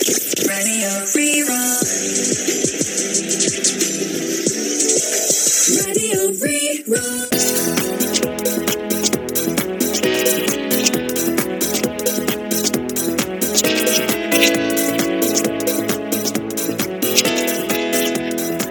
Radio Rí-Rá. Radio Rí-Rá.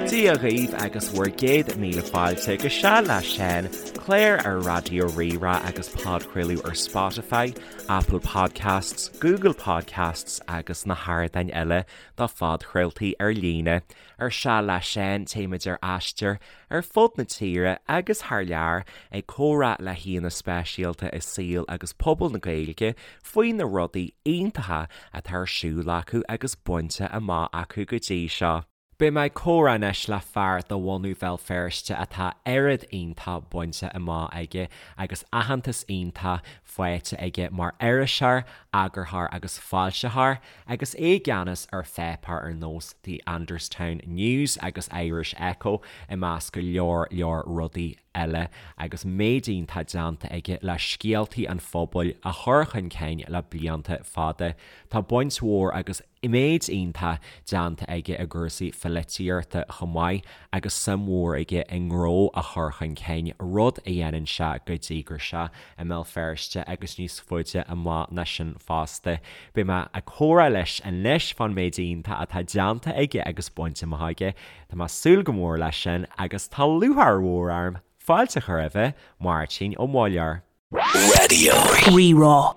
Dia dhaoibh agus bhur gcéad míle fáilte go Seal le Seán, clár ar Raidió Rí-Rá agus podchraoladh ar Spotify, Apple Podcasts, Google Podcasts agus na hardáin eile do phodchraoltaí ar líne. Ar Seal le Seán, téimid ar aistear ar fud na tíre agus thar lear ag comhrá le haíonna speisialta i saol agus pobal na Gaeilge faoi na rudaí iontacha atá ar siúl acu agus bainte amach acu go dtí seo. Beidh mé ag comhrá anois le fear de bhunadh Bhéal Feirste atá oiread iontach bainte amach aige agus aitheantas iontach faighte aige mar iriseoir, eagarthóir agus foilsitheoir agus é i gceannas ar pháipéir ar nós The Anderstown News agus Irish Echo i measc go leor leor rudaí eile agus méid iontach déanta aige le scéaltaí an phobail a chur chun cinn le blianta fada. Tá baint mhór agus méid iontach déanta aige i gcúrsaí pholaitíochta chomh maith agus suim mhór aige i ngnó a chur chun cinn, rud a dhéanann sé go díograiseach i mBéal Feirste agus níos faide amach ná sin fosta. Beidh mé ag comhrá leis anois fán méid iontach atá déanta aige agus bainte amach aige. Tá mé ag súil go mór leis sin agus tá lúcháir mhór orm fáilte a chur roimhe, Máirtín Ó Muilleoir. Radio. Rí-Rá.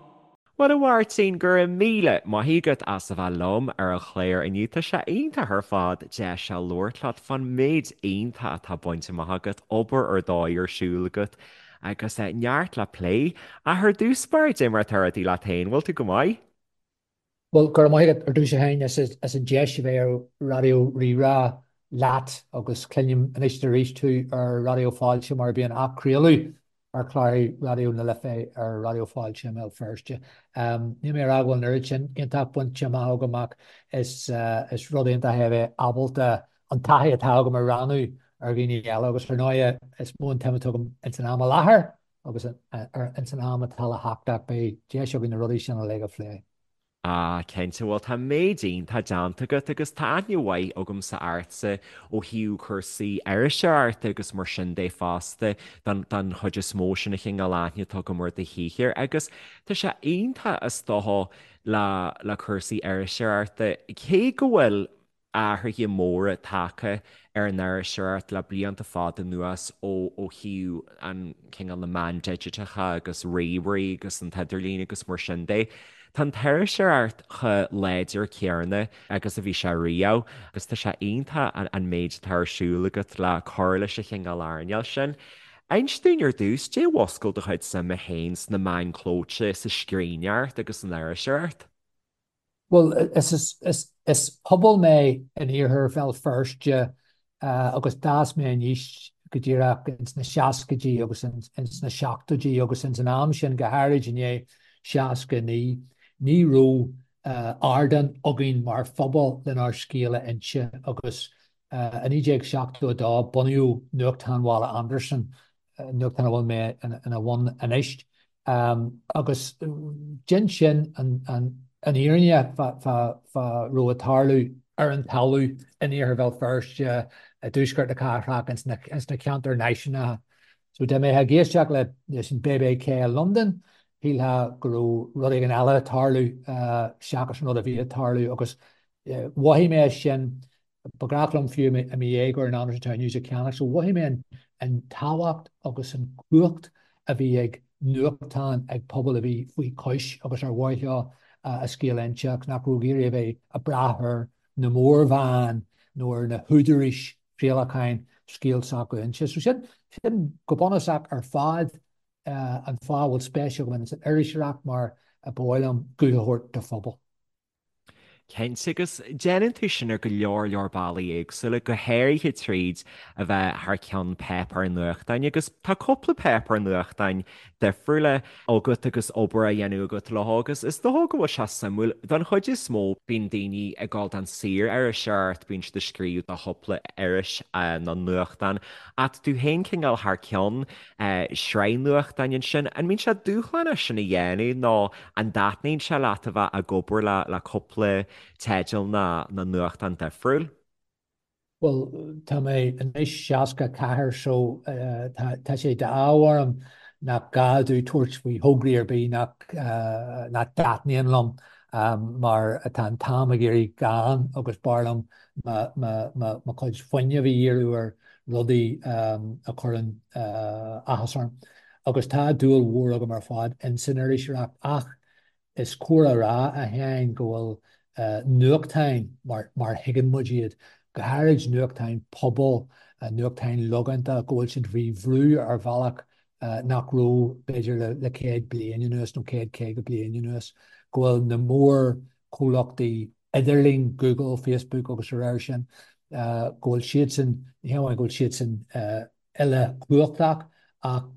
Bhuel a Mháirtín, go raibh míle maith agat as a bheith liom ar an chlár inniu. Tá sé iontach ar fad deis a labhairt leat fán méid iontach atá bainte amach agat, obair ar dóigh ar siúl agat agus neart le plé. Ach ar dtús báire, dé mar atá rudaí leat féin, bhfuil tú go maith? Bhuel, go raibh maith agat ar dtús a Sheáin as an deis a bheith ar Raidió Rí-Rá leat agus cluinim anois is arís tú ar Raidió Fáilte mar bíonn athchraoladh ar chláir Raidió na Life ar Raidió Fáilte i mBéal Feirste. Níl mé ag rá go bhfuil an oiread sin iontach bainte amach agam ach is rud iontach é a bheith ábalta an taithí atá agam a rannú ar dhaoine eile agus ar ndóigh is mó an tsuim atá agam ins an am i láthair agus ins an am atá le theacht ach beidh deis againn na rudaí sin uilig a phlé. Ah, cinnte, bhuel tá méid iontach déanta agat agus tá aithne mhaith agamsa ortsa ó thaobh cúrsaí iriseoireachta agus mar sin de fosta don don chuid is mó sin an chineál aithne atá agam ar do shaothar agus tá sé iontach is dócha le le cúrsaí iriseoireachta cé go bhfuil athruithe móra tagtha ar an iriseoireacht le blianta fada anuas ó ó thaobh an cineál na meán digiteacha agus ríomhairí agus an t-idirlíon agus mar sin de. Tá an t-iriseoireacht chomh láidir céanna agus a bhí sé riamh agus tá sé iontach an méid atá ar siúl agat le cur leis an chineál earnáil sin. Inis dúinn ar dtús, dé mhúscail do chuid suime féin sna meáin chlóite, sa scríbhneoireacht agus san iriseoireacht? Bhuel, is pobal mé in iarthar Bhéal Feirste agus d'fhás mé aníos go díreach ins na seascaidí agus ins na seachtóidí agus ins an am sin, go háirid i ndiaidh 69, ní raibh ardán againn mar phobal lenár scéal a inse agus i 1972 bunaíodh Nuachtán Bhaile Andarsan, nuachtán a bhfuil mé ina bhun anois. Agus dhein sin an fhírinne fá raibh ag tarlú ar an talamh in iarthar Bhéal Feirste, i dtuaisceart na cathrach, ins na ceantair náisiúnacha. So dá mbeifeá ag éisteacht leis an BBK i Londain, shílfeá go raibh rud éigin eile ag tarlú seachas an rud a bhí ag tarlú agus mhothaigh mé sin Ba ghnách liom fiú i mo dhéagóir an Andersonstown News a cheannach, so mhothaigh mé an tábhacht agus an cumhacht a bhí ag nuachtán ag pobal a bhí faoi chois agus ar mhaith leo a scéal a inse ach nach raibh ag iarraidh a bheith ag brath ar na mórmheáin nó ar na húdaráis chraolacháin scéal s'acu a inse. So sin, sin go bunúsach ar fad an fáth a bhfuil spéis agam ins an iriseoireacht mar ba mhaith liom guth a thabhairt do phobal. Cinnte, agus déanann tú sin ar go leor leor bealaí éagsúla, go háirithe tríd a bheith thar ceann páipéar nuachtáin, agus tá cúpla páipéar nuachtáin difriúla agat agus obair á dhéanamh agat leo agus is dócha go bhfuil sé suimiúil. Don chuid is mó, bíonn daoine ag dul don saor-iriseoireacht, bíonn siad ag scríobh do chúpla iris nó nuachtán, ach tú féin cineál thar ceann sraith nuachtáin ansin. An mbíonn sé dúshlánach sin a dhéanamh nó an dtaitníonn sé leat a bheith ag obair le cúpla. teidil na nuachtán difriúil? Bhuel, tá mé anois 64 so tá sé d'ádh orm nach gá domh tabhairt faoi thograí ar bith nach nach dtaitníonn liom mar tá an t-am ag éirí gann agus b'fhearr liom mo chuid fuinnimh a dhíriú ar rudaí a chuireann áthas orm. Agus tá dúil mhór agam ar fad ins an iriseoireacht ach Is cóir a rá, a Sheáin, go bhfuil nuachtáin mar mar thuigeann muid iad, go háirid nuachtáin pobail, nuachtáin logánta, go bhfuil siad faoi bhrú ar bhealach nach raibh, b'fhéidir, le 100 bliain anuas nó 100, 50 bliain anuas, go bhfuil na mórchomhlachtaí idirlín, Google, Facebook agus a réir sin, go bhfuil siadsan, ní hamháin go bhfuil siadsan uilechumhachtach ach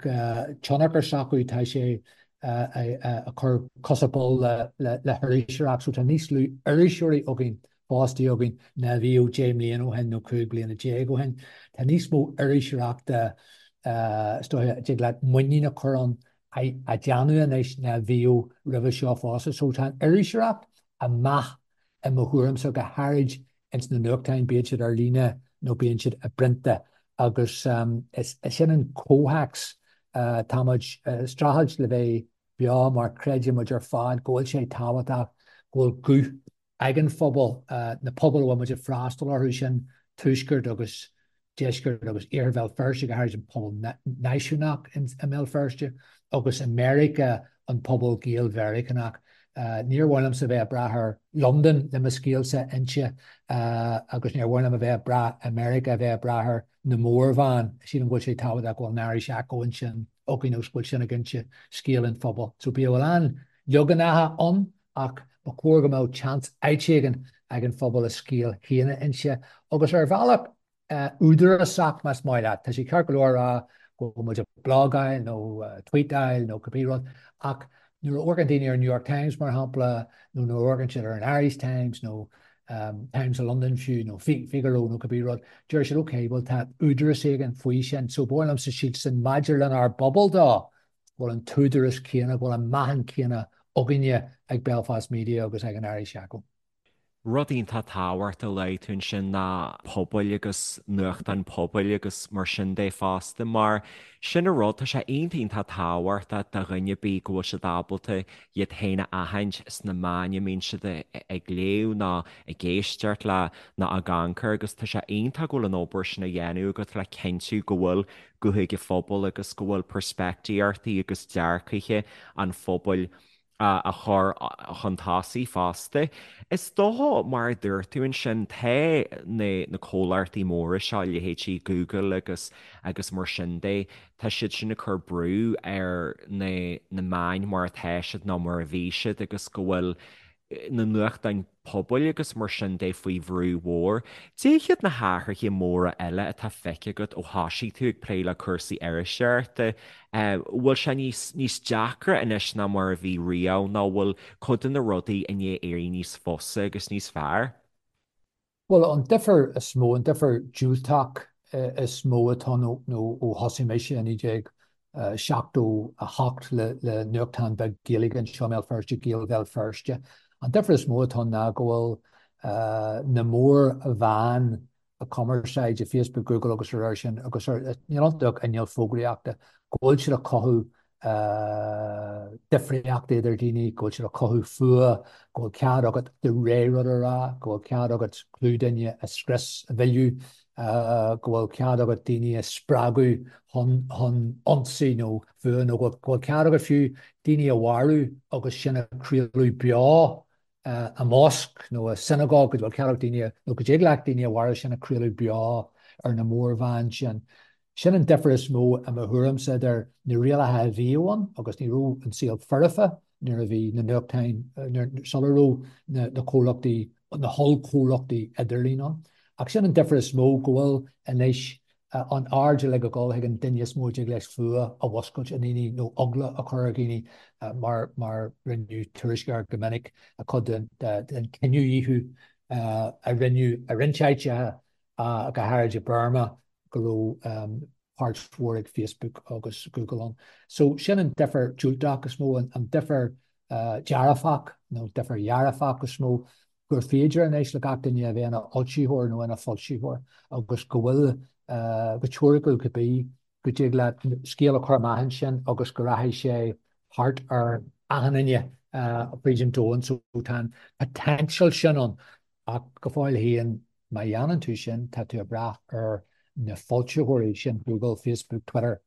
tionchar s'acu, tá sé ag cur cosa poill le hiriseoireacht. So tá níos lú iriseoirí againn, fostaithe againn, ná a bhíodh 10 mbliana ó shin nó 15 bliana ó shin. Tá níos mó iriseoireachta, is dóiche, a dtig leat muinín a chur ann, á déanamh anois ná a bhíodh roimhe seo fosta. So tá an iriseoireacht ag meath i mo thuairimse, go háirid ins na nuachtáin, bíodh siad ar líne nó bíonn siad i bprionta, agus is sin an comhthéacs. Tá muid ag streachailt le bheith beo mar creideann muid ar fad go bhfuil sé tábhachtach go bhfuil guth ag an phobal, na pobail a bhfuil muid ag freastal orthu, sin Tuaisceart agus Deisceart agus Iarthar Bhéal Feirste, go háirid an pobal náisiúnach i mBéal Feirste, agus i Meiriceá an pobal Gael-Mheiriceánach. Níor mhaith liomsa bheith ag brath ar Londain le mo scéalsa a inse agus níor mhaith liom a bheith ag brath i Meiriceá a bheith ag brath ar na mórmheáin. Sílim go bhfuil sé tábhachtach go bhfuil an Irish Echo ansin againn agus go bhfuil sin ag inse scéal an phobail. So bíodh a lán leaganacha ann ach ba chóir go mbeadh seans áit éigin ag an phobal a scéal féin a inse agus ar bhealach údarásach más maith leat. Tá sé ceart go leor a rá go bhfuil muid ag blagáil nó tweetáil nó cibé rud ach nuair a amharcann daoine ar an New York Times mar shampla nó nuair a amharcann siad ar an Irish Times nó Times of London fiú nó Figaro nó cibé rud, deir siad ok, bhuel tá údarás éigin faoi sin so ba mhaith liomsa sílsean maidir lenár bpobal dó go bhfuil an t-údarás céanna, go bhfuil an meáchan céanna againne ag Belfast Media agus ag an Irish Echo. Rud iontach tábhachtach a luaigh tú ansin ná pobail agus nuachtáin pobail agus mar sin de fosta mar sin an rud, tá sé iontach iontach tábhachtach do dhuine ar bith go bhfuil siad ábalta iad féin a aithint sna meáin a mbíonn siad ag léamh nó ag éisteacht le nó ag amharc air agus tá sé iontach go bhfuil an obair sin á dhéanamh agat le cinntiú go bhfuil guth ag an phobal agus go bhfuil peirspictíochtaí agus dearcaithe an phobail á chur chun tosaigh fosta. Is dócha, mar a dúirt tú ansin, tá na comhlachtaí móra seo, leithéidí Google agus agus mar sin de, tá siad sin ag cur brú ar na na meáin mar atá siad nó mar a bhí siad agus go bhfuil na nuachtáin pobail agus mar sin de faoi bhrú mhór. Cad iad na hathruithe móra eile atá feicthe agat ó thosaigh tú ag plé le cúrsaí iriseoireachta? Bhfuil sé níos níos deacra anois ná mar a bhí riamh nó bhfuil cuid de na rudaí i ndiaidh éirí níos fusa agus níos fearr? Bhuel, an difear is mó, an difear diúltach is mó atá ann nó ó thosaigh mise i 1978 le nuachtán beag Gaeilge anseo i mBéal Feirste, Gaeil Bhéal Feirste, an difear is mó atá ann ná go bhfuil na mórmheáin cumarsáide, Facebook, Google agus a réir sin, agus níl iontu ach inneall fógraíochta, go bhfuil siad ag cothú difríochta idir daoine, go bhfuil siad ag cothú fuath, go bhfuil cead agat do rogha rud a rá, go bhfuil cead agat clú duine a scrios, a mhilleadh, go bhfuil cead agat daoine a spreagadh chun chun ionsaí nó fuath nó go bhfuil cead agat fiú daoine a mharú agus sin a chraoladh beo i mosc nó i sionagóg, go bhfuil cead ag daoine nó go dtig leat daoine a mharú sin a chraoladh beo ar na mórmheáin sin. Sin an difear is mó i mo thuairimse idir na rialacha a bhíodh ann agus ní raibh an saol foirfe nuair a bhí na nuachtáin, sula raibh na comhlachtaí, na hollchomhlachtaí idirlín ann. Ach sin an difear is mó, go bhfuil anois an aird uilig ag dul chuig an duine is mó a dtig leis fuath a mhuscailt i ndaoine nó eagla a chur ar dhaoine mar mar rinneadh tuairisc air go minic, cuid den cinedhíothú a rinneadh i roinnt áiteacha, go háirid i Burma, go raibh páirt mhór ag Facebook agus Google ann. So sin an difear diúltach is mó, an difear dearfach nó difear dhearfach is mó. gur féidir anois le gach duine a bheith ina fhoilsitheoir nó ina foilsitheoir agus go bhfuil, go teoiriciúil cibé, go dtig leat scéal a chur amach ansin agus go rachaidh sé thart ar achan duine fríd an domhan. So tá an potential sin ann ach go fóill féin má dhéanann tú sin tá tú ag brath ar na foilsitheoirí sin, Google, Facebook, Twitter,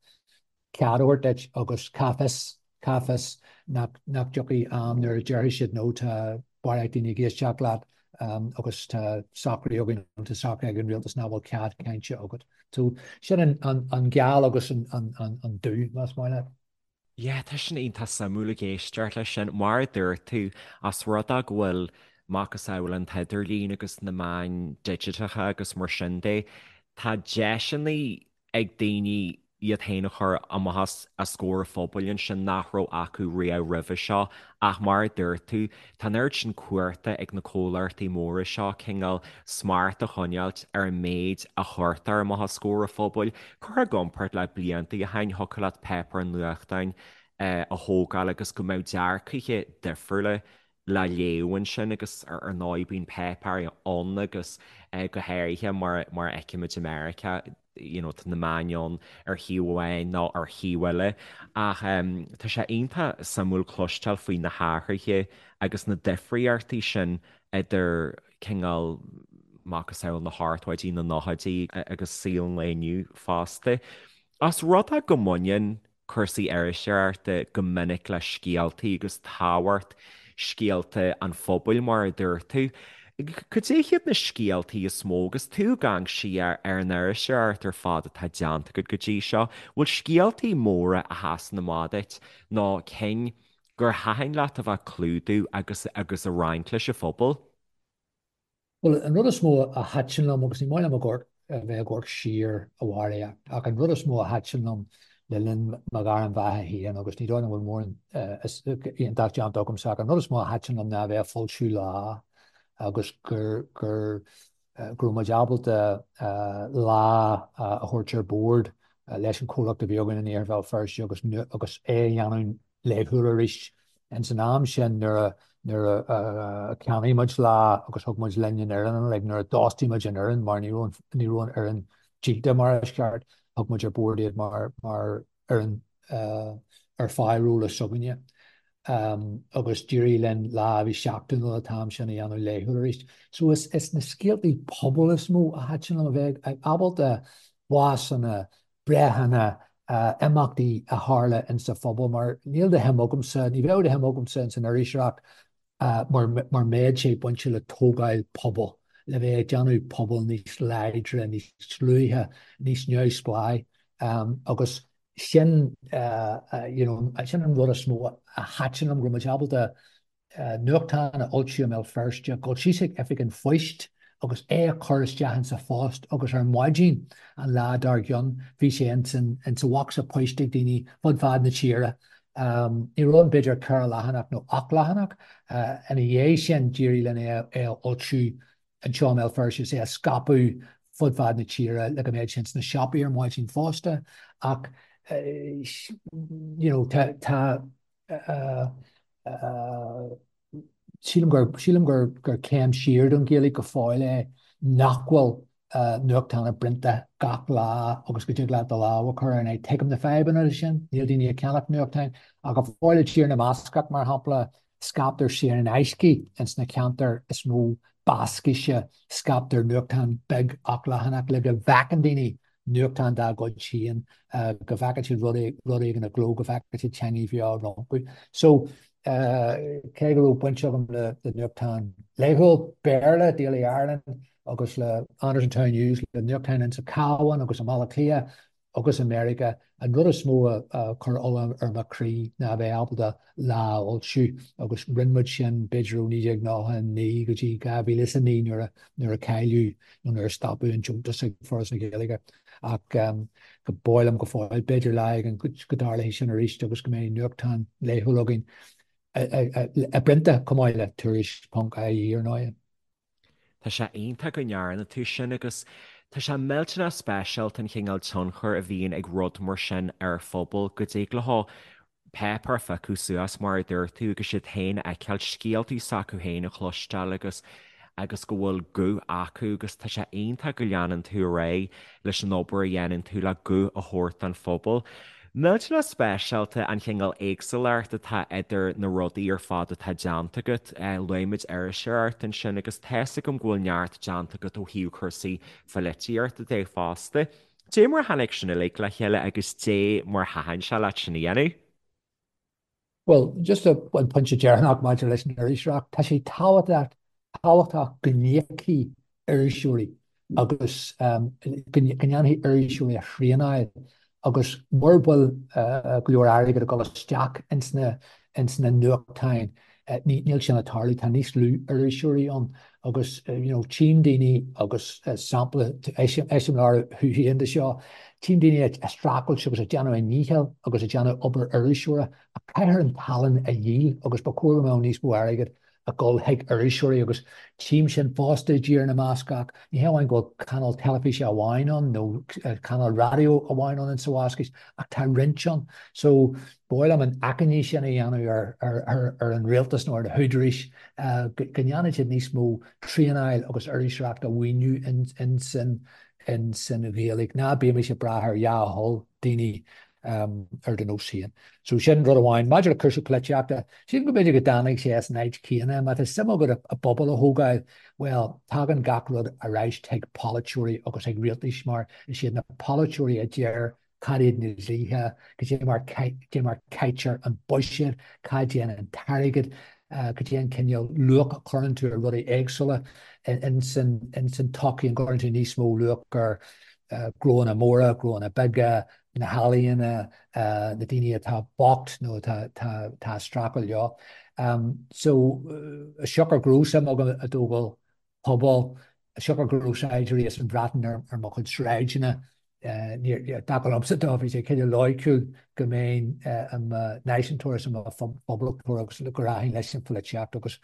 cead a thabhairt duit agus cá bhfios, cá bhfios nach dtiocfaidh am nuair a déarfaidh siad no tá barraíocht daoine ag éisteacht leat agus tá socraí againn nó tá socraí ag an rialtas nach bhfuil cead cainte agat. So sin an geal agus an dubh, más maith leat. Yeah, tá sin iontach suimiúil ag éisteacht leis sin. Mar a dúirt tú, as rud é go bhfuil macasamhail an t-idirlíon agus na meáin digiteacha agus mar sin de, tá deiseanna ag daoine iad féin a chur amach os comhair an phobail ansin nach raibh acu riamh roimhe seo ach mar a dúirt tú, tá an oiread sin cumhachta ag na comhlachtaí móra seo cineál smacht a choinneáilt ar an méid a chuirtear amach os comhair an phobail. Curtha i gcomparáid le blianta ó shin, thiocfadh leat páipéar nuachtáin a thógáil agus go mbeadh dearcaithe difriúla le léamh ansin agus ar ndóigh bíonn páipéirí ann agus go háirithe mar a fheicimid i Meiriceá you know tá na meáin ann ar thaobh amháin nó ar thaobh eile ach tá sé iontach suimiúil cloisteáil faoi na hathruithe agus na difríochtaí sin idir cineál macasamhail na hochtóidí, na nóchaidí agus saol an lae inniu fosta. Os rud é go mbaineann cúrsaí iriseoireachta go minic le scéaltaí agus tábhacht scéalta an phobail, mar a dúirt tú. Cad é hiad na scéaltaí is mó agus tú ag amharc siar ar an iriseoireacht ar fad atá déanta agat go dtí seo? Bhfuil scéaltaí móra a sheasann amach duit nó cinn gur thaitin leat a bheith ag clúdú agus agus a roinnt leis an phobal? Bhuel, an rud is mó a thaitin liom, agus ní maith liom a bheith ag amharc siar a Mháire, ach an rud is mó a thaitin liom le linn mo ghairm bheatha féin, agus ní dóigh liom go bhfuil mórán iontach déanta agamsa, ach an rud is mó a thaitin liom ná a bheith ag foilsiú Lá agus gur gur go raibh muid ábalta Lá a thabhairt ar bord leis an chomhlacht a bhí againn in Iarthar Bhéal Feirste agus agus é a dhéanamh laethúil arís. Ins an am sin nuair a nuair a cheannaigh muid Lá agus thug muid linn an fhoireann like nuair a d'fhostaigh muid an fhoireann mar ní raibh ní raibh an fhoireann díolta mar is ceart, thug muid ar bord iad mar mar fhoireann ar phárolla s'againne. Agus d'éirigh linn Lá a bhí seachtainiúil an t-am sin a dhéanamh laethúil arís. So is is na scéaltaí pobail is mó a thaitin liom a bheith ábalta básanna, breitheanna, imeachtaí a tharla insa phobal mar níl de shuim agamsa, ní bheadh de shuim agamsa ins an iriseoireacht mura mbeadh sé bainte le tógáil pobail, le bheith ag déanamh pobal níos láidre, níos dlúithe, níos neamhspleáí agus sin you know sin an rud is mó a thaitin liom, go raibh muid ábalta nuachtán a fhoilsiú i mBéal Feirste, dul síos ag oifig an phoist agus é a chur isteach insa phost agus ar maidin an lá dár gcionn bhí sé insa bhocsa poist ag daoine fud fad na tíre. Ní raibh ann b'fhéidir ceithre leathanach nó ocht leathanach. Ina dhiaidh sin d'éirigh linn é a fhoilsiú anseo i mBéal Feirste is é a scaipeadh fud fad na tíre le go mbeadh sé ins na siopaí ar maidin fosta ach you know tá tá Sílim gur, sílim gur, gur céim siar don Ghaeilge go fóill é nach bhfuil nuachtán i bprionta gach lá agus go dtig leat do lámh a chur air. Now tuigim na fadhbanna leis sin, níl daoine ag ceannach nuachtáin ach go fóill i dTír na mBascach, mar shampla, scaiptear saor in aisce ins na ceantair is mó Bascaise, scaiptear nuachtán beag ochtleathanach le go bhfeiceann daoine nuachtán dá gcuid féin, go bhfeiceann siad rud rud éigin i gcló, go bhfeiceann siad teangaidh bheo rompu. So, cé go raibh baint agam le nuachtán laethúil Béarla, Daily Ireland, agus le Andersonstown News, le nuachtáin insa Cabhán agus i mBaile Átha Cliath, agus i Meiriceá, an rud is mó a chuir ola ar mo chroí ná a bheith ábalta Lá a fhoilsiú agus rinne muid sin b'fhéidir ó 1999 go dtí 2009 nuair a nuair a cailleadh nó nuair a stopadh an deontas ag Foras na Gaeilge. Ach go b'áil liom go fóill, b'fhéidir lá éigin go dtarlóidh sin arís agus go mbeidh nuachtán laethúil againn i bprionta chomh maith le Tuairisc ponc ie ar ndóigh. Tá sé iontach go ndearna tú sin agus tá sé millteanach speisialta an chineál tionchair a bhíonn ag rud mar sin ar phobal, go dtig leo páipéar a phiocadh suas mar a dúirt tú agus iad féin a fheiceáil, scéaltaí s'acu féin a chloisteáil agus. agus go bhfuil guth acu agus tá sé iontach go leanann tú ar aghaidh leis an obair a dhéanann tú le guth a thabhairt don phobal. Millteanach speisialta an chineál éagsúlacht atá idir na rudaí ar fad atá déanta agat. Luaigh muid iriseoireacht ansin agus tá's agam go bhfuil neart déanta agat ó thaobh cúrsaí pholaitíochta de fosta. Dé mar a tháinig sin uilig le chéile agus dé mar thaitin sé leat sin a dhéanamh? Bhuel, just an pointe deireanach maidir leis an iriseoireacht, tá sé tábhachtach tábhachtach go n-íocfaí iriseoirí agus go ndéanfaí iriseoirí a thraenáil agus mura bhfuil go leor airgid ag dul isteach ins na ins na nuachtáin, níl sin ag tarlú, tá níos lú iriseoirí ann agus you know tchím daoine agus sampla eiseamláir thú féin de seo, tchím daoine ag streachailt agus ag déanamh a ndícheall agus ag déanamh obair iriseora ach caithfear an tallann a dhíol agus ba chóir go mbeadh níos mó airgid ag dul chuig iriseoirí agus tchím sin fosta i dTír na mBascach. Ní hé amháin go bhfuil cainéal teilifíse amháin ann nó cainéal raidió amháin ann insa Bhascais ach tá roinnt ann. So ba mhaith liom an achainí sin a dhéanamh ar an rialtas nó ar na húdaráis go ndéanfaidh siad níos mó traenáil agus iriseoireacht a mhaoiniú insan Ghaeilge. Ná bímis ag brath ar dhea-thoil daoine ar do nós féin. So sin rud amháin. Maidir le cúrsaí polaitíochta, sílim go mb'fhéidir go dtáinig sé as an áit chéanna. Má tá suim agat i bpobal a thógáil, bhuel, tagann gach rud ar ais chuig polaiteoirí agus chuig rialtais mar is iad na polaiteoirí a deir cad iad na dlíthe, cad é mar cad é mar caitear an buiséad, cá dtéann an t-airgead, cad é an cineál luach a chuireann tú ar rudaí éagsúla ins an tsochaí, an gcuireann tú níos mó luach ar gnóanna móra, gnóanna beaga, na healaíona, na daoine atá bocht nó atá ag streachailt leo. So, siocair go raibh suim agam i dtógáil pobail, siocair go raibh saighdiúirí as an Bhreatain ar mo chuid sráideanna, dar liomsa dó, bhí sé cineál loighciúil go mbeinn i mo náisiúntóir is i mo phoblachtóir agus go rachainn leis an pholaitíocht agus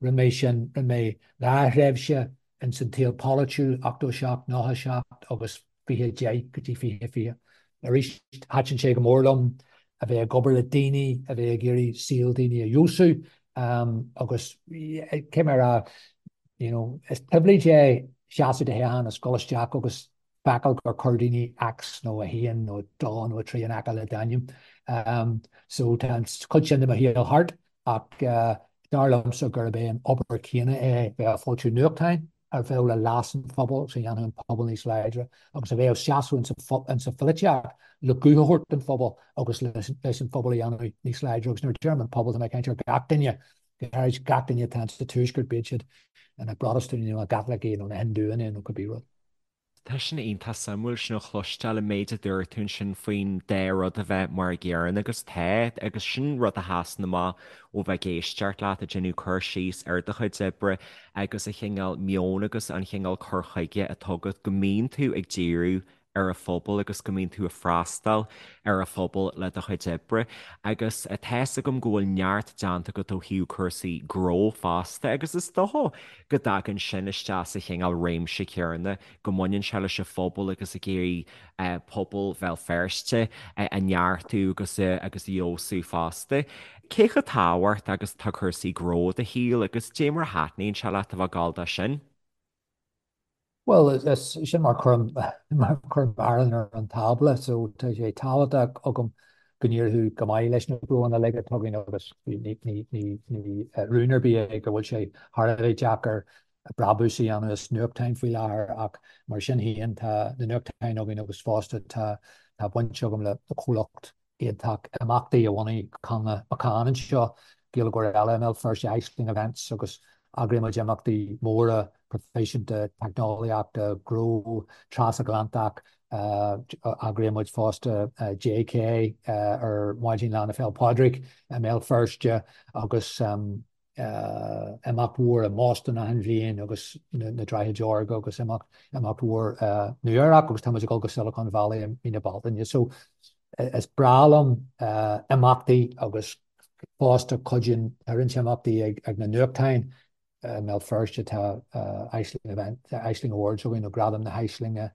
rinne mé sin, rinne mé dhá thréimhse ins an tsaol polaitiúil, 87, 97 agus 2010 go dtí 2020. Arís, thaitin sé go mór liom a bheith ag obair le daoine, a bheith ag iarraidh saol daoine a fheabhsú agus cé mar a you know, is pribhléid é seasamh do thoghchán is dul isteach agus feiceáil gur chuir daoine X nó 1 nó 2 nó 3 in aice le d'ainm. So tá an chuid sin de mo shaol thart ach dar liomsa gurb é an obair chéanna é bheith ag foilsiú nuachtáin, a bheadh le leas an phobail agus a dhéanfadh an pobal níos láidre agus a bheadh seasamh insa pholaitíocht le guth a thabhairt don phobal agus leis an phobal a dhéanamh níos láidre agus nuair a deirim an pobal tá mé ag caint ar gach duine, go háirid gach duine atá insa Tuaisceart, bíodh siad ina bProtastúnaigh nó ina gCaitlicigh nó ina Hindúanna nó cibé rud. Tá sin iontach suimiúil sin a chloisteáil, an méid a dúirt tú ansin faoin dá rud a bheith mar a gcéanna agus tá, agus sin rud a sheasann amach ó bheith ag éisteacht leat ag déanamh cur síos ar do chuid oibre agus an chineál meoin agus an chineál cur chuige atá agat go mbíonn tú ag díriú ar an phobal agus go mbíonn tú ag freastal ar an phobal le do chuid oibre. Agus tá's agam go bhfuil neart déanta agat ó thaobh cúrsaí gnó fosta agus is dócha go dtagann sin isteach sa chineál réimse céanna, go mbaineann sé leis an phobal agus ag iarraidh pobal Bhéal Feirste a neartú agus a agus a fheabhsú fosta. Cé chomh tábhachtach agus atá cúrsaí gnó i do shaol agus dé mar a thaitníonn sé leat a bheith ag gabháil dó sin? Bhuel, sin mar cuirim mar cuirim arán ar an tábla, so tá sé tábhachtach agam go n-éireodh go maith leis na gnóanna uilig atá againn agus ní ní ní rún ar bith é go bhfuil sé thar a bheith deacair brabús a dhéanamh as nuachtáin faoi láthair ach mar sin féin tá na nuachtáin againn agus fosta tá tá baint agam le comhlacht iontach imeachtaí a bhunaigh Connla McCann anseo, Gaeilgeoir eile i mBéal Feirste, Aisling Events, agus eagraíonn muid imeachtaí móra proifisiúnta teicneolaíochta, gnó, trasatlantach. Eagraíonn muid fosta JK ar maidin Lá na Féile Pádraig i mBéal Feirste agus imeacht mhór i mBoston achan bhliain agus na Droichid Órga agus imeacht imeacht mhór Nua Eabhrac agus tá muid ag dul go Silicon Valley i mí na Bealtaine. So is breá liom imeachtaí agus fosta cuidíonn tá roinnt imeachtaí ag ag na nuachtáin i mBéal Feirste tá Aisling Event Aisling Awards againn nó Gradam na hAislinge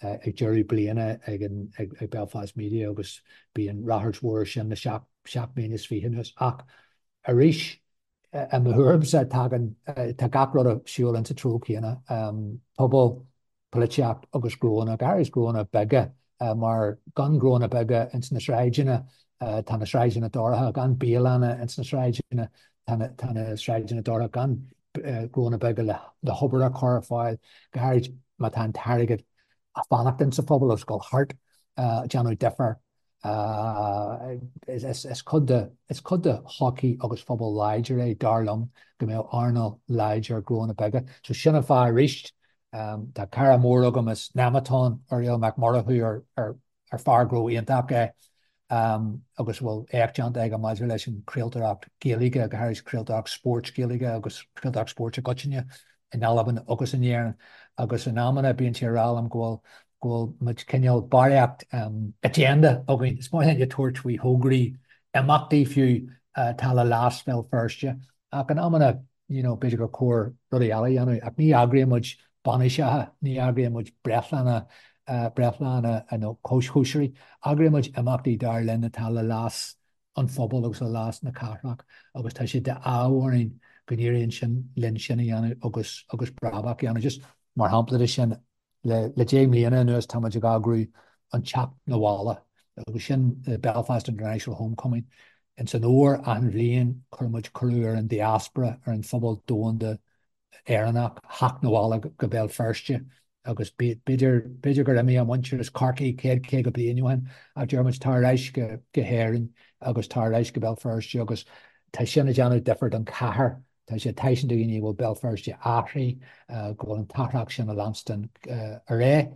ag deireadh bliana ag an ag Belfast Media agus bíonn ráchairt mhór sin le 27 mbliana anuas ach Arís. I mo thuairimse, tagann, tá gach rud ag siúl insa treo céanna, pobal, polaitíocht agus gnóanna, go háirid gnóanna beaga, mar gan gnóanna beaga ins na sráideanna, tá na sráideanna dorcha, gan bialanna ins na sráideanna, tá na sráideanna dorcha, gan gnóanna beaga le hobair a chur ar fáil, go háirid má tá an t-airgead ag fanacht insa phobal agus ag dul thart, déanamh difear. Is cuid de is cuid de shochaí agus phobal láidir é, dar liom, go mbeadh earnáil láidir gnóanna beaga. So sin an fáth arís, tá cara mór agam as Nemeton, Uriel Mac Murchú, ar ar fear gnó iontach é agus a bhfuil éacht déanta aige maidir leis an chraoltóireacht Ghaeilge, go háirid craoltóireacht spóirt Ghaeilge agus craoltóireacht spóirt i gcoitinne in Albain agus in Éirinn. Agus in amanna bíonn sé ag rá liom go bhfuil go bhfuil muid cineál barraíocht agenda againn. Is maith linn a tabhairt faoi thograí imeachtaí fiú atá le leas Bhéal Feirste ach in amanna you know b'fhéidir gur chóir rudaí eile a dhéanamh ach ní eagraíonn muid bainiseacha, ní eagraíonn muid breithlánna, breithlánna nó cóisirí. Eagraíonn muid imeachtaí dar linn atá le leas an phobail agus le leas na cathrach agus tá sé d'ádh orainn go n-éiríonn sin linn sin a dhéanamh agus agus brabach a dhéanamh. Just mar shampla de sin, Le 10 mbliana anuas tá muid ag eagrú an Teacht 'Na Bhaile agus sin the Belfast International Homecoming. Ins an fhómhar achan bhliain cuireann muid cuireadh ar an diaspora, ar an phobal domhanda Éireannach theacht 'na bhaile go Béal Feirste agus b'fhéidir, b'fhéidir gur imigh a muintir as Corcaigh 100, 50 bliain ó shin ach deir muid tar ar ais go hÉirinn agus tar ar ais go Béal Feirste agus tá sin ag déanamh difear don chathair. Tá sé ag taispeáint do dhaoine go bhfuil Béal Feirste athraithe, go bhfuil an t-athrach sin ag leanstan ar aghaidh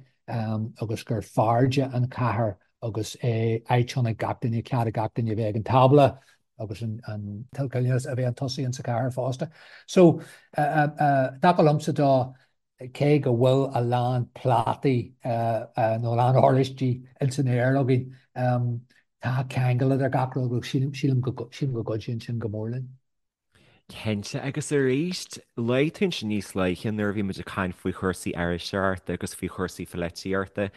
agus gur fearrde an chathair agus é áit ann ag gach duine, cead ag gach duine a bheith ag an tábla agus an toilteanas a bheith chun tosaigh insa chathair fosta. So, dtaca liomsa dó, cé go bhfuil a lán plátaí nó a lán oráistí ins an aer againn, tá ceangal idir gach rud agus sílim go gcuidíonn sin go mór linn. Cinnte, agus arís, luaigh tú ansin níos luaithe nuair a bhí muid ag caint faoi chúrsaí iriseoireachta agus faoi chúrsaí polaitíochta,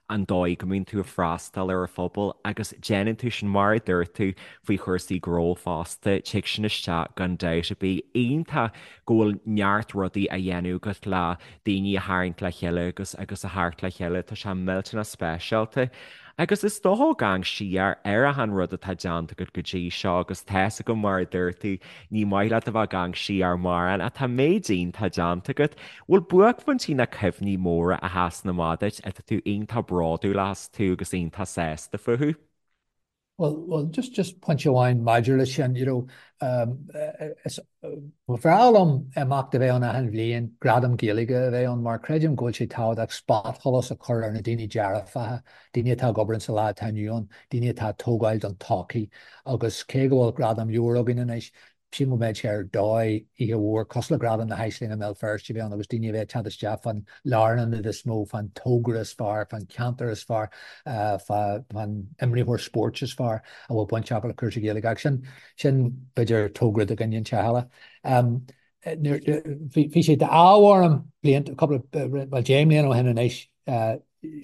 an dóigh go mbíonn tú ag freastal ar an phobal agus déanann tú sin, mar a dúirt tú, faoi chúrsaí gnó fosta, tig sin isteach gan dabht ar bith. Iontach go bhfuil neart rudaí á dhéanamh agat le daoine a tharraingt le chéile agus agus a theacht le chéile, tá sé millteanach speisialta. Agus is dócha ag amharc siar ar achan rud atá déanta agat go dtí seo agus tá's agam mar a dúirt tú, ní maith leat a bheith ag amharc siar mórán ach tá méid iontach déanta agat. Bhfuil buaicphointí nó cuimhní móra a sheasann amach duit atá tú iontach bródúil astu agus iontach sásta fúthu? Bhuel, bhuel, just, just pointe amháin maidir leis sin, you know, um, is, Ba bhreá liom imeacht a bheith ann achan bhliain, gradam Gaeilge a bheith ann, mar creidim go bhfuil sé tábhachtach spotsholas a chur ar na daoine dearfacha, daoine atá ag obair insa lá atá inniu ann, daoine atá ag tógáil don todhchaí. Agus cé go bhfuil gradam leabhar againn anois, sílim go mbeadh sé ar dóigh oíche mhór cosúil le Gradam na hAislinge i mBéal Feirste a bheith ann agus daoine a bheith ag teacht isteach fán lárionad is mó, fán togra is fearr, fán cheantar is fearr, fán imreoir spóirt is fearr a bhfuil baint acu le cúrsaí Gaeilge. Ach sin Sin, b'fhéidir, togra do dhuine inteacht eile. Bhí sé d'ádh orm blianta, cúpla, bhuel, 10 mbliana ó shin anois,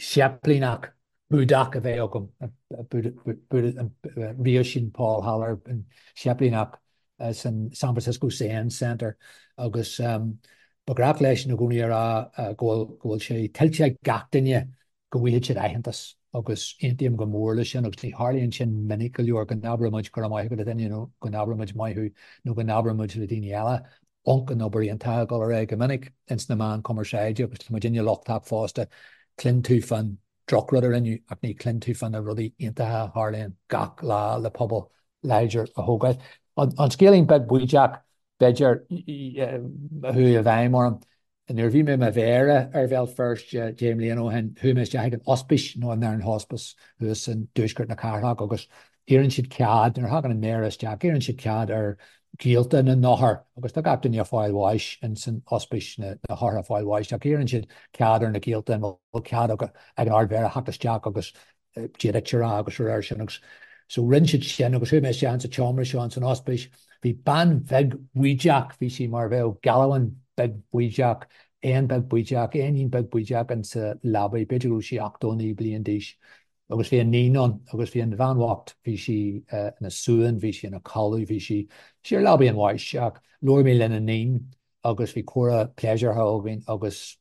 séiplíneach Búdach a bheith agam, Ríoisín Paul Haller, an séiplíneach san San Francisco Zen Center agus ba ghnách leis i gcónaí a rá go bhfuil sé tuillte ag gach duine go bhfaighidh siad aitheantas agus aontaím go mór leis sin agus ní tharlaíonn sin minic go leor go n-abrann muid go raibh maith agat a dhuine nó go n-abrann muid maith thú nó go n-abrann muid le daoine eile ionc an obair iontach ag dul ar aghaidh go minic ins na meáin cumarsáide agus tá muidinne lochtach fosta cluin tú fán drochrud a rinneadh ach ní cluin tú fá na rudaí iontacha a tharlaíonn gach lá le pobal láidir a thógáil. An scéilín beag baoideach b'fhéidir a chuaigh i bhfeidhm orm Nuair a bhí mé i mo mhéara ar Bhéal Feirste 10 mbliana ó shin, chuaigh mé isteach ag an ospís, nó an Nairn Hospice, thuas in dtuaisceart na cathrach agus iarrann siad cead, nuair a thagann an méara isteach, iarrann siad cead ar ghaolta na n-othar, agus tá gach duine ag fáil bháis ins an ospís, na hothair ag fáil bháis, ach iarrann siad cead ar na gaolta an bhfuil cead ag an Ard-Mhéara theacht isteach agus Dia duit a rá agus a rá sin agus so rinne siad sin agus chuaigh mé isteach insa tseomra seo ins an ospís. Bhí bean bheag bhaoideach, bhí sí mar bheadh gealbhan beag baoideach, éan beag baoideach, éinín beag baoideach insa leabaidh, b'fhéidir go raibh sí 89 bliain d'aois agus bhí a níon ann agus bhí an bhean bhocht, bhí sí ina suan, bhí sí ina codladh, bhí sí, sí ar leabaidh an bháis ach. Labhair mé lena níon agus bhí comhrá pléisiúrtha againn agus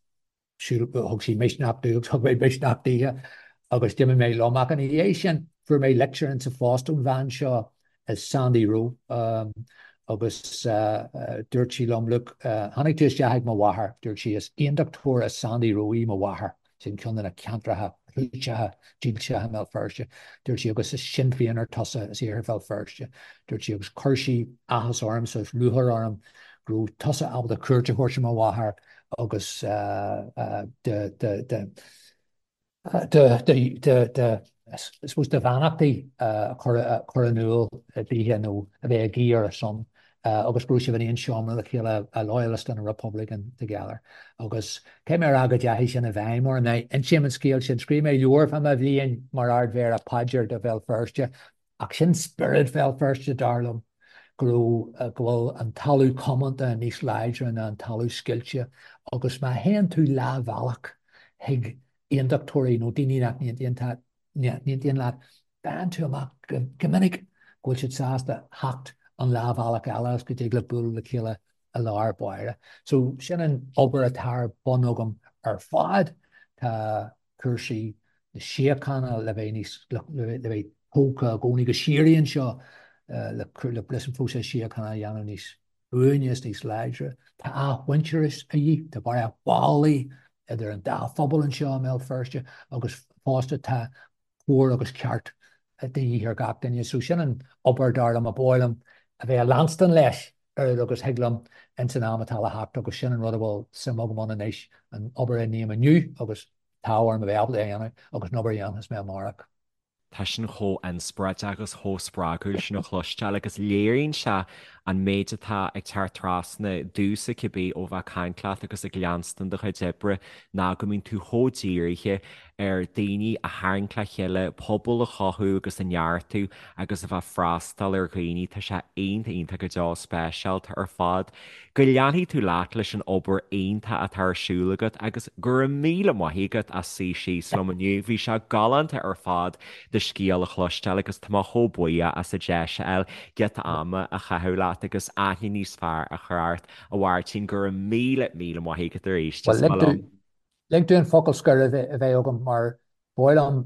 thug sí misneach domh agus thug mé misneach dithe agus d'imigh mé liom. Ach ina dhiaidh sin fuair mé litir insa phost ón bhean seo, Sandy Rowe, agus dúirt sí liom, look, tháinig tú isteach ag mo mháthair, dúirt sí, is aondachtóir as Sandy Row í mo mháthair. Sin ceann de na ceantracha clúiteacha dílseacha i mBéal Feirste, dúirt sí, agus is Sinn Féineach tusa as Iarthar Bhéal Feirste, dúirt sí, agus chuir sí áthas ormsa is lúcháir orm go raibh tusa ábalta cuairt a thabhairt ar mo mháthair agus do, do, do, do, do, do, I suppose do bheannachtaí a chur in iúl dithe nó a bheith ag guí ar a son. agus go raibh sibh in aon seomra le chéile, a loyalist and a republican together. Agus caithfidh mé a rá go dteachaigh sin i bhfeidhm orm. Now, insím an scéal sin, scríobh mé leabhar fá mo bhliain mar Ard-Mhéara, Paidir do Bhéal Feirste, ach sin spiorad Bhéal Feirste, dar liom, go raibh, go bhfuil an talamh comónta níos láidre ná an talamh scoilte agus má théann tú leathbhealach chuig aondachtóirí nó daoine nach n-aontaíonn leat, faigheann tú amach go minic go bhfuil siad sásta theacht an leathbhealach eile agus go dtig libh bualadh le chéile i lár báire. So sin an obair atá ar bun agam ar fad. Tá cúrsaí na síochána le bheith níos, le bheith tógtha i gcónaí go síoraí anseo le leis an phróiseas síochána a dhéanamh níos buaine is níos láidre. Tá athmhuintearas a dhíth, tá barraíocht ballaí idir an dá phobal anseo i mBéal Feirste agus fosta tá cóir agus ceart de dhíth ar gach duine. So sin an obair dar liom a ba mhaith liom a bheith ag leanstan leis oiread agus thig liom ins an am atá le theacht agus sin an rud a bhfuil suim agam ann anois, an obair a ním inniu agus tá orm a bheith ábalta a dhéanamh agus an obair a dhéanfas mé amárach. Tá sin chomh inspioráideach agus chomh spreagúil sin a chloisteáil agus léiríonn sé an méid atá ag teacht trasna domhsa cibé ó bheith ag caint leat agus ag leanstan do chuid oibre ná go mbíonn tú chomh dírithe ar daoine a tharraingt le chéile, pobal a chothú agus a neartú agus a bheith ag freastal ar dhaoine. Tá sé iontach, iontach go deo speisialta ar fad. Go leanfaidh tú leat leis an obair iontach atá ar siúl agat agus go raibh míle maith agat as suí síos liom inniu. Bhí sé galánta ar fad do scéal a chloisteáil agus tá mé chomh buíoch as an deis a fháil giota ama a chaitheamh leat agus aithne níos fearr a chur ort. A Mháirtín, go raibh míle, míle maith agat arís. Is maith liom. Lig domh an focal scoir a bheith agam mar ba mhaith liom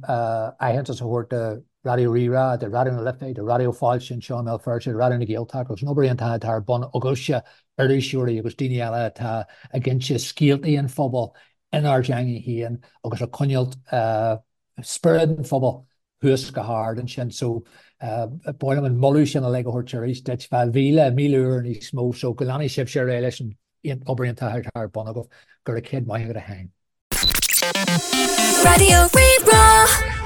aitheantas a thabhairt do Raidió Rí-Rá, do Raidió na Life, do Raidió Fáilte anseo i mBéal Feirste, do Raidió na Gaeltachta agus an obair iontach atá ar bun agaibhse, iriseoirí agus daoine eile atá ag inse scéaltaí an phobail inár dteanga féin agus ag coinneáilt spiorad an phobail thuas go hard ansin. So ba mhaith liom an moladh sin uilig a thabhairt arís duit, fá mhíle, 1000 uair níos mó. So go leanfaidh sibhse ar aghaidh leis an obair iontach atá ar bun agaibh. Go raibh céad maith agat a Sheáin. Raidió Rí-Rá.